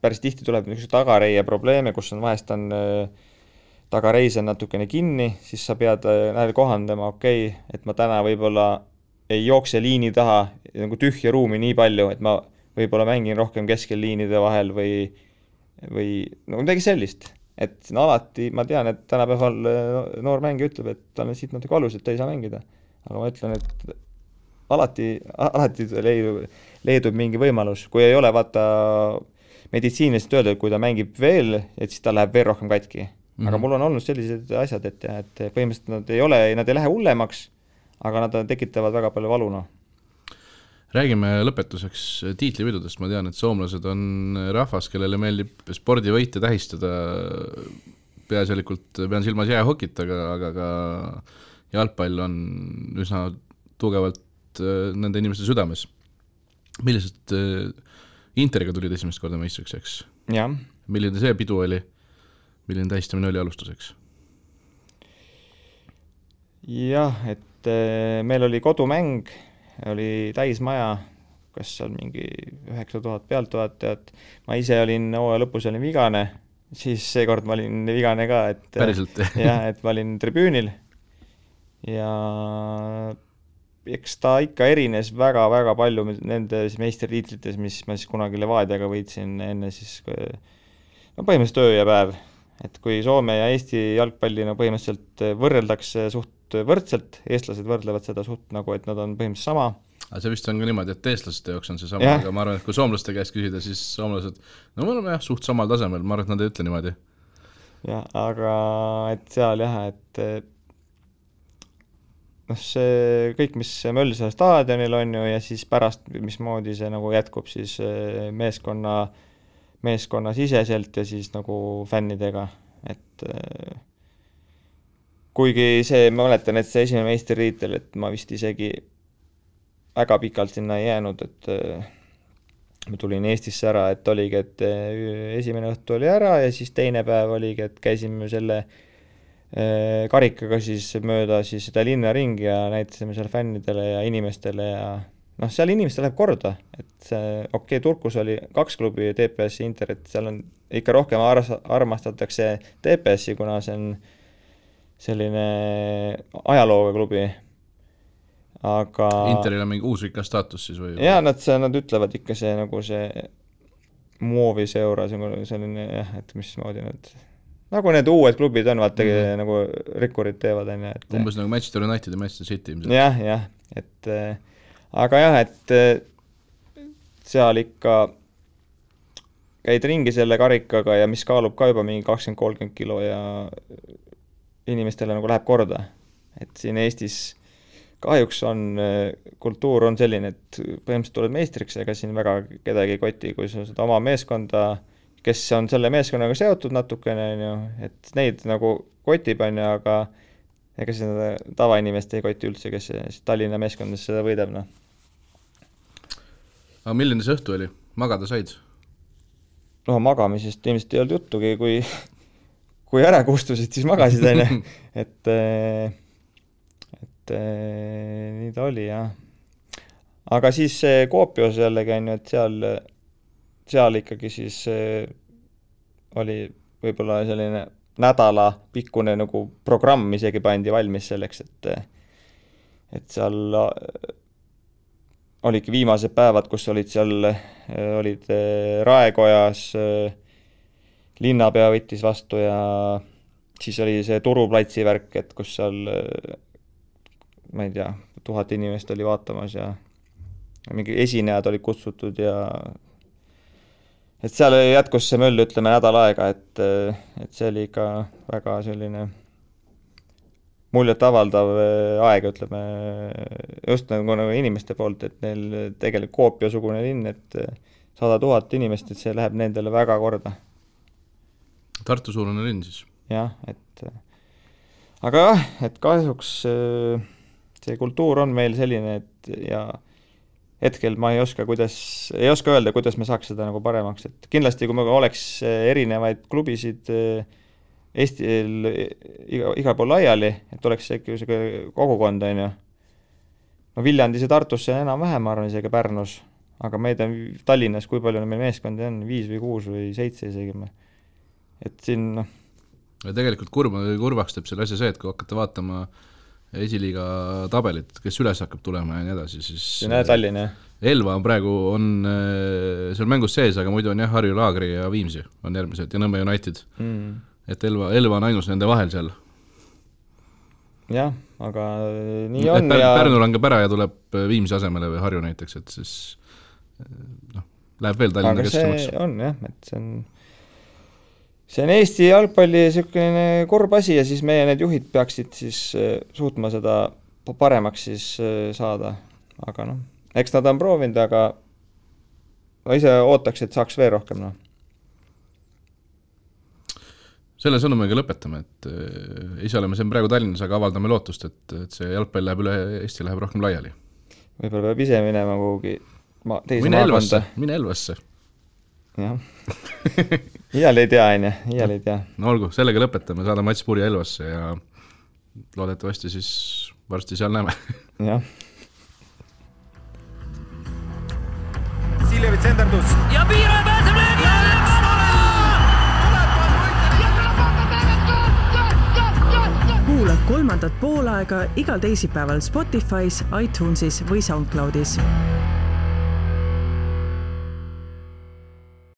päris tihti tuleb niisuguse tagareie probleeme, kus on vahest on tagareis on natukene kinni, siis sa pead kohandama, et ma täna võib-olla ei jookse liini taha nagu tühja ruumi nii palju, et ma võib-olla mängin rohkem keskel liinide vahel või no midagi sellist. Et alati, ma tean, et tänapäeval noor mängija ütleb, et tal on siit natuke valus, et ta ei saa mängida. Aga ma ütlen, et alati leidub mingi võimalus. Kui ei ole vaata meditsiiniliselt öelda, et kui ta mängib veel, et siis ta läheb veel rohkem katki. Aga mul on olnud sellised asjad, et põhimõtteliselt nad ei lähe hullemaks, aga nad tekitavad väga palju valuna. Räägime lõpetuseks tiitlivõidudest. Ma tean, et soomlased on rahvas, kellele meeldib spordivõite tähistada. Peaasjalikult pean silmas jäähokit, aga ka jalgpall on üsna tugevalt nende inimeste südames. Millised Interiga tulid esimest korda meistriks, eks? Ja. Milline see pidu oli? Milline tähistamine oli alustuseks? Jah, et meil oli kodumäng, oli täismaja, kas seal mingi 9000 pealtvaatajat. Ma ise olin lõpus olin vigane, siis seekord ma olin vigane ka, et päriselt? Jah, et ma olin tribüünil ja eks ta ikka erines väga-väga palju nendes meistritiitlites, mis ma siis kunagi Levadiaga võitsin enne siis põhimõtteliselt öö ja päev. Et kui Soome ja Eesti jalgpalli põhimõtteliselt võrreldakse suht võrdselt, eestlased võrdlevad seda suht nagu, et nad on põhimõtteliselt sama. Aga see vist on ka niimoodi, et eestlaste jaoks on see sama, aga ma arvan, et kui soomlaste käest küsida, siis soomlased, no me oleme suht samal tasemel, ma arvan, et nad ei ütle niimoodi. Jah, aga et seal et see kõik, mis Mölsal staadionil on ju, ja siis pärast, mismoodi see nagu jätkub siis meeskonna siseselt ja siis nagu fännidega, et kuigi see, ma mäletan, et see esimene meistritiitel, et ma vist isegi väga pikalt sinna ei jäänud, et ma tulin Eestisse ära, et oligi, et esimene õhtu oli ära ja siis teine päev oligi, et käisime selle karikaga siis mööda siis seda linna ringi ja näitasime seal fännidele ja inimestele ja seal inimestel läheb korda, et see, Turkus oli 2 klubi TPS ja Inter, et seal on ikka rohkem armastatakse TPS-i, kuna see on selline ajalooga klubi. Aga Interil on mingi uusvika staatus siis või? Jaa, nad ütlevad ikka see nagu see moovis euro, selline jah, et mismoodi nad nagu need uued klubid on, vaata nagu rikkurid teevad. Umbes nagu Manchester United ja Manchester City. Jah, et aga jah, et seal ikka käid ringi selle karikaga ja mis kaalub ka juba mingi 20-30 kilo ja inimestele nagu läheb korda. Et siin Eestis kahjuks on, kultuur on selline, et põhimõtteliselt tuled meistriks, ega siin väga kedagi koti, kui sa seda oma meeskonda, kes on selle meeskonnaga seotud natukene, et neid nagu kotib on, aga ega seda tavainimest ei koti üldse, kes Tallinna meeskondades seda võidab. Aga milline see õhtu oli? Magada said? magamisest ilmselt ei olnud juttugi, kui ära kustusid, siis magasid, et nii ta oli, jah. Aga siis Kuopios jällegi on ju, et seal ikkagi siis oli võib-olla selline nädala pikkune nagu programm isegi pandi valmis selleks, et seal olidki viimased päevad, kus olid Raekojas, linnapea võttis vastu ja siis oli see Turuplatsi värk, et kus seal, ma ei tea, 1000 inimest oli vaatamas ja mingi esinejad olid kutsutud ja et seal jätkus see möll, ütleme, nädal aega, et see oli ikka väga selline muljet avaldav aeg, ütleme, just nagu inimeste poolt, et neil tegelikult Kuopio-sugune linn, et 100 000 inimest, et see läheb nendele väga korda. Tartu-suurune linn siis. Jah, aga jah, et kahjuks see kultuur on meil selline, et ja hetkel ma ei oska öelda, kuidas me saaks seda nagu paremaks, et kindlasti kui me oleks erinevaid klubisid Eestil igal pool laiali, et oleks see kogukond, on ju. No Viljandis ja Tartusse enam-vähem, ma arvan, isegi Pärnus, aga meid on Tallinnas, kui palju meil meeskondi on, 5 või 6 või 7 isegi. Et siin, Ja tegelikult kurvaks teeb selle asja see, et kui hakkate vaatama esiliiga tabelit, kes üles hakkab tulema ja nii edasi, siis Tallinn, jah. Elva on praegu seal mängus sees, aga muidu on jah, Harju Laagri ja Viimsi on järgmised ja Nõmme United. Et Elva on ainus nende vahel seal. Jah, aga nii on. Pärnu langeb ära ja tuleb Viimsi asemele või Harju näiteks, et siis läheb veel Tallinna kesksõmaks. Aga see on jah, et see on Eesti jalgpalli selline korb asi ja siis meie need juhid peaksid siis suutma seda paremaks siis saada. Aga eks nad on proovinud, aga ma ise ootaks, et saaks veel rohkem. Selle sõnumiga lõpetame, et ise oleme siin praegu Tallinnas, aga avaldame lootust, et see jalgpall läheb üle Eesti, läheb rohkem laiali. Võib-olla peab ise minema kuhugi teise maakonda. Mine Elvasse. Jah. Iial ei tea. No olgu, sellega lõpetame, saada Mats Puri Elvasse ja loodetavasti siis varsti seal näeme. Jah. Siljevi tsenderdus. Ja Piiro pääseb löögi! Kuula kolmandat poolaega igal teisipäeval Spotify's, iTunesis või SoundCloudis.